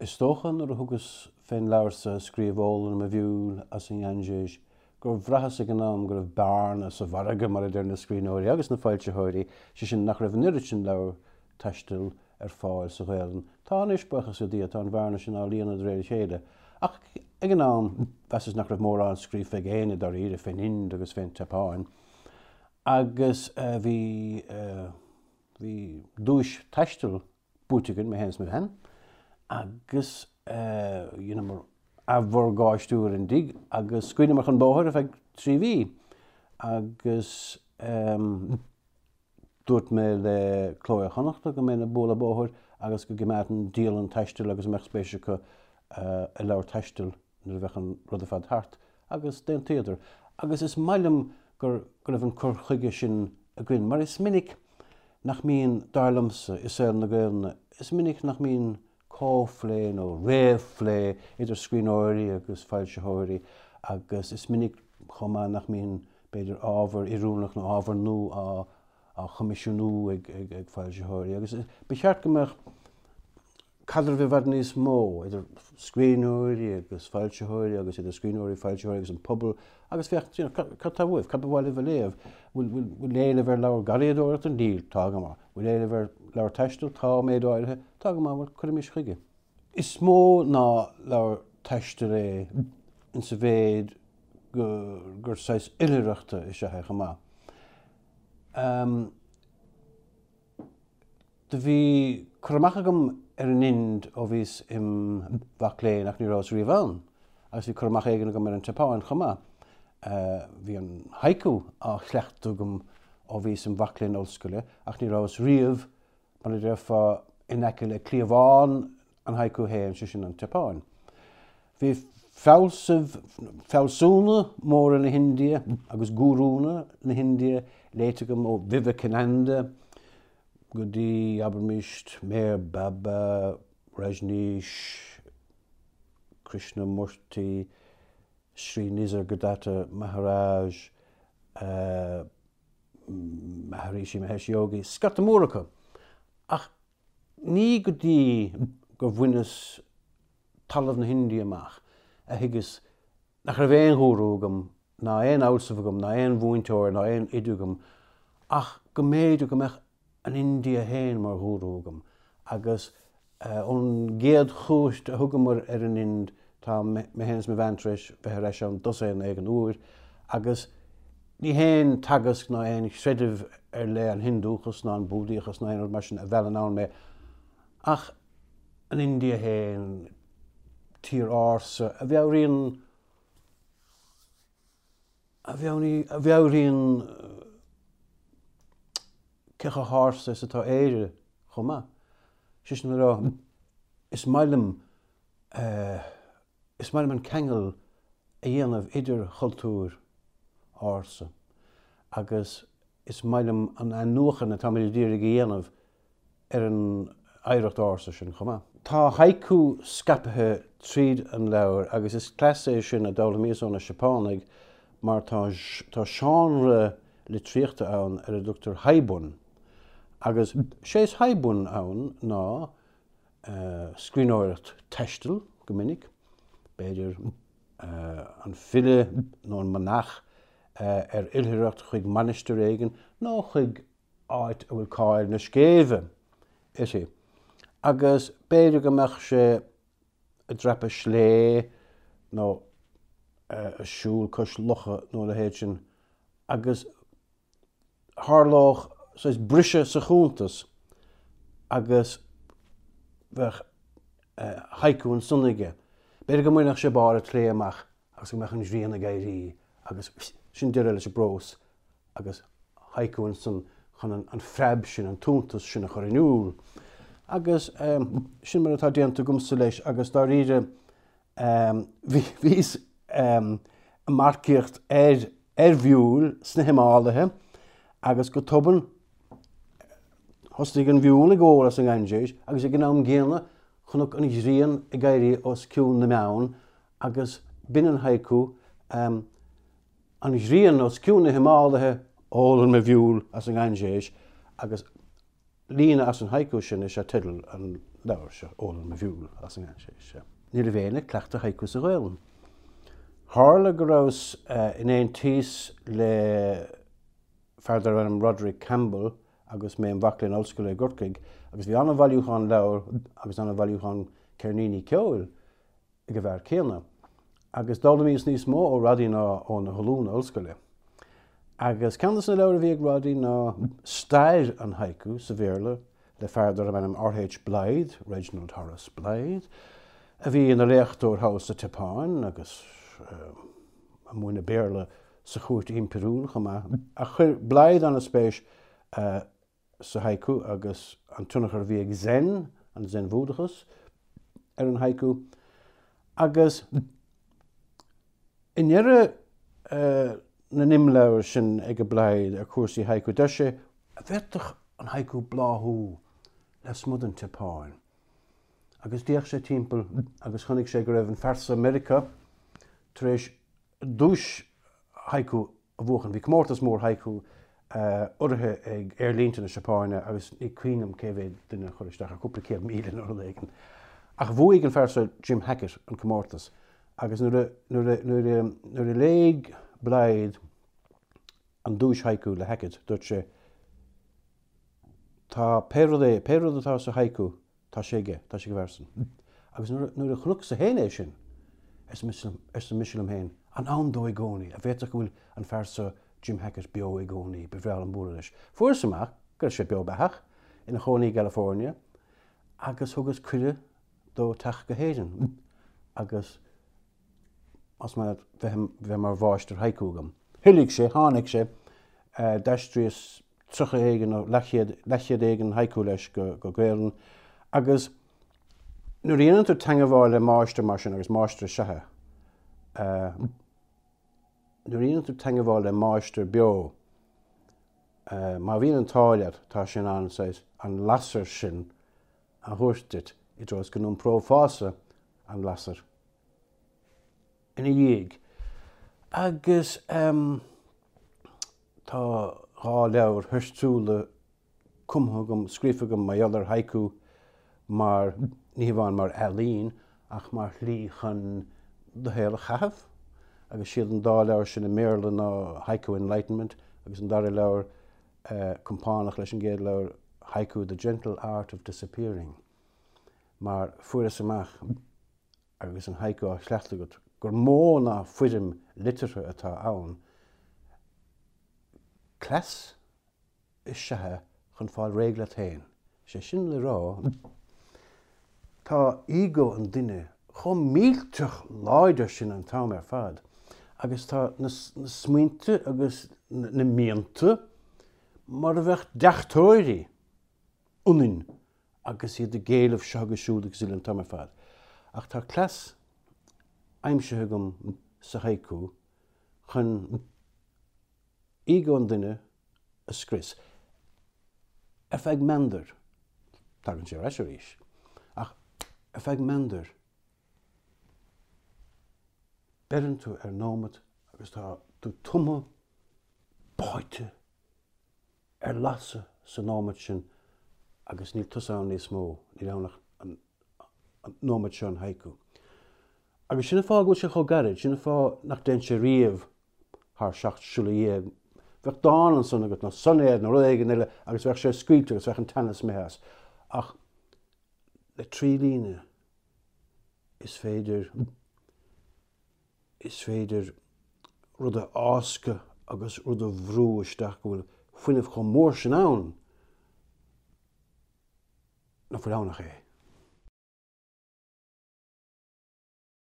Is dócha nuair a thugas fén leabhar so a scríobh Ólann Mo Mhiúil as an nGainséis gur bhraitheas ag an am go raibh bearna sa mhargadh mar a deir na scríbhneoirí agus na foilsitheoirí, sé sin nach raibh an oiread sin leabhar taistil ar fáil sa Ghaelainn. Tá anois, buíochas le Dia, tá an bhearna sin á líonadh de réir a chéile. Ach ag an am, mheasas nach raibh mórán scríofa ag éinne dáiríre fén Ind agus fén tSeapáin. Agus bhí, bhí duais taistil buaite againn, mé féin is mo bhean, agus dheineamar athmhorgáistiú ar an dtigh agus scaoileamar chun bóthair ar feadh 3 mhí agus dúirt mé le Cló Iar-Chonnachta go mbeinn ag bualadh bóthair agus go gcoimeádfainn dialann taistil agus a mbeadh spéis acu i leabhar taistil nuair a bheadh an rud ar fad thart agus d'aontaíodar. Agus is maith liom gur go raibh an cur chuige sin againn mar is minic nach mbíonn, dar liomsa, i saol na Gaelainne, is minic nach mbíonn comhphlé nó réamhphlé idir scríbhneoirí agus foilsitheoirí agus is minic chomh maith nach mbíonn, b'fhéidir, ábhar oiriúnach nó ábhar nua á choimisiúnú ag foilsitheoirí agus ba cheart go mbeadh caidreamh i bhfad níos mó idir scríbhneoirí agus foilsitheoirí agus idir scríbhneoirí, foilsitheoirí agus an pobal agus féach, you know, cad tá uaibh, cad ba mhaith libh a léamh? Bhfuil, bhfuil, bhfuil éileamh ar leabhar garraíodóireachta? Níl, tá go maith. Bhfuil éileamh ar leabhar taistil? Tá, méid áirithe. Tá go maith, bhuel, cuirimis chuige. Is mó ná leabhar taistil é insa mhéid go, gur saghas oilithreachta is ea é chomh maith. Um, Do bhí cur amach agam ar an Ind ó bhíos im mhac léinn ach ní rabhas riamh ann, agus bhí cur amach éigin agam ar an tSeapáin chomh maith. Bhí an haiku á chleachtadh agam ó bhíos im mhac léinn ollscoile ach ní rabhas riamh, mar a déarfá, in aice le cliabhán an haiku féin, sé sin an tSeapáin. Bhí fealsaimh, fealsúna móra na hIndia agus gúrúnna na hIndia léite agam ó Vivekananda, go dtí, abraimis, Meher Baba, Rajneesh, Krishnamurti, Sri Nisargadatta Maharaj, Maharishi Mahesh Yogi, scata mór acu. Ach ní go dtí gur bhaineas talamh na hIndia amach a thuigeas nach raibh aon ghúrú agam, ná aon fhealsamh agam, ná aon mhúinteoir, ná aon oide agam, ach go mb'fhéidir go mbeadh an India féin mar ghúrú agam. Agus ón gcéad chuairt a thugamar ar an Ind, tá mé féin is mo bhean tar éis bheith ar ais ann dosaen éigin uair, agus ní haon teagasc ná aon chreideamh ar leith, an Hiondúchas ná an Búdaíochas ná aon rud mar sin a mheallann ann mé, ach an India féin, tír ársa a mheabhraíonn a mheabhraíonn cé chomh hársa is atá Éire chomh maith. Sé sin le rá, is maith liom is maith liom an ceangal a dhéanamh idir chultúir ársa agus is maith liom an athnuachan atáimid a d'iarraidh a dhéanamh ar an oidhreacht ársa sin chomh maith. Tá haiku scaipthe tríd an leabhar agus is cleas é sin a d'fhoghlaimíos ó na Seapánaigh mar tá tá seánra litríochta ann ar a dtugtar haibun agus sé is haibun ann ná scríbhneoireacht taistil go minic, b'fhéidir an file nó an manach ar oilithreacht chuig mainistir éigin nó chuig áit a bhfuil cáil na scéimhe uirthi, agus b'fhéidir go mbeadh sé ag dreapadh slé nó ag siúl cois locha nó a leithéid sin, agus tharlódh saghas briseadh sa chuntas agus bheadh haiku ansan aige. B'fhéidir go mbainfeadh sé barr an tslé amach agus go mbeadh an ghrian ag éirí agus sin deireadh leis an bprós. agus haiku ansan chun an phreab sin, an t-iontas sin a chur in iúl. Agus sin mar atá déanta agamsa leis agus dáiríre bhíos ag marcaíocht ar ar mhiúil sna Himálaithe agus go tobann thosnaigh an mhiúil ag ól as an nGainséis agus ag an am gcéanna chonac an ghrian ag éirí os cionn na mbeann agus b'in an haiku An ghrian os cionn na Himálaithe, ólann mo mhiúil as an nGainséis agus Líne as an haiku sin is ea teideal an leabhair seo, Ólann Mo Mhiúil as an nGainséis. Ní raibh éinne ag cleachtadh haiku sa Ghaelainn. Tharla go rabhas in aontíos le fear darbh ainm Roderick Campbell agus mé im mhac léinn ollscoile i gCorcaigh agus bhí an-bhailiúchán leabhar agus an-bhailiúchán ceirníní ceoil ag an bhfear céanna. Agus d'fhoghlaimíos níos mó ó Roddy ná ó na hollúna ollscoile. Agus ceann de na leabhair a bhí ag Roddy ná Stair an Haiku sa Bhéarla le fear darbh ainm R.H. Blyth, Reginald Horace Blyth, a bhí ina léachtóir thall sa tSeapáin agus ag múineadh Béarla sa chúirt impiriúil chomh maith. Ach chuir Blyth an-spéis sa haiku agus an tionchar a bhí ag Zen, an Zen-Bhúdachas, ar an haiku. Agus i ndeireadh na n-imleabhar sin ag Blyth ar chúrsaí haiku, deir sé, an bhféadfadh an haiku bláthú lasmuigh den tSeapáin? Agus d'fhéach sé timpeall agus chonaic sé go raibh an fear seo i Meiriceá tar éis duais haiku a bhuachan. Bhí comórtas mór haiku urraithe ag aerlínte na Seapáine agus ní cuimhin liom cé mhéad duine a chuir isteach, cúpla 100,000 nó rud éigin. Ach bhuaigh an fear seo, Jim Hackett, an comórtas agus nuair a, nuair a, nuair a, nuair a léigh Blyth an duais haiku le Hackett, dúirt sé, Tá pé rud é, pé rud atá sa haiku, Tá sé aige, tá sé ag an bhfear san. Agus nuair a chonacsa féin é sin, arsa mise liom féin, an ann dó i gcónaí, an bhféadfadh go bhfuil an fear seo, Jim Hackett, beo i gcónaí, ba bhreá liom bualadh leis. Fuaireas amach go raibh sé beo beathach, ina chónaí i gCalifornia, agus thugas cuireadh dó teacht go hÉirinn agus más maith leat bheith mar mháistir haiku agam. Thoiligh sé, tháinig sé, d'aistríos 30 éigin nó leathchéad, leathchéad éigin haiku leis go, go Gaelainn agus nuair a dhéanann tú teangabháil le máistir mar sin, agus máistir is ea é, nuair a dhéanann tú teangabháil le máistir beo, má bhíonn an t-ádh leat, tá sé in ann saghas an lasair sin a thabhairt duit i dtreo is go n-iomprófása an lasair ina dhiaidh. Agus tá dá leabhar thoirtiúla cumtha agam, scríofa agam mar gheall ar haiku mar, ní hamháin mar ealaín, ach mar shlí chun do shaol a chaitheamh. Agus siad an dá leabhar sin i mBéarla ná Haiku Enlightenment agus an dara leabhar, compánach leis an gcéad leabhar, Haiku, The Gentle Art of Disappearing. Mar fuaireas amach agus an haiku á chleachtadh agat, gur mó ná foirm liteartha atá ann, cleas is ea é chun fáil réidh leat féin. Is é sin le rá, tá ego an duine chomh millteach láidir sin an t-am ar fad agus tá na smaointe agus na mianta mar a bheadh deachtóirí ionainn agus iad ag éileamh seo agus siúd agus uile an t-am ar fad. Ach tá cleas aimsithe agam sa haiku chun ego an duine a scrios. Ar feadh meandair. Tagann sé ar ais arís. Ach ar feadh meandair, beireann tú ar nóimeat agus tá tú tumtha, báite, ar lasadh sa nóimeat sin agus níl tusa ann níos mó, níl ann ach an nóimeat seo, an haiku. Agus sin an fáth go bhfuil sé chomh gairid, sin an fáth nach dtéann sé riamh thar 17 siolla. Bheadh dán ansan agat nó soinéad nó rud éigin eile agus bheadh sé scaoilte agus bheadh an teannas imithe as. Ach le 3 líne is féidir Is féidir rud a fháscadh agus rud a bhrú isteach go bhfuil fuinneamh chomh mór sin ann nach bhfuil ann ach é.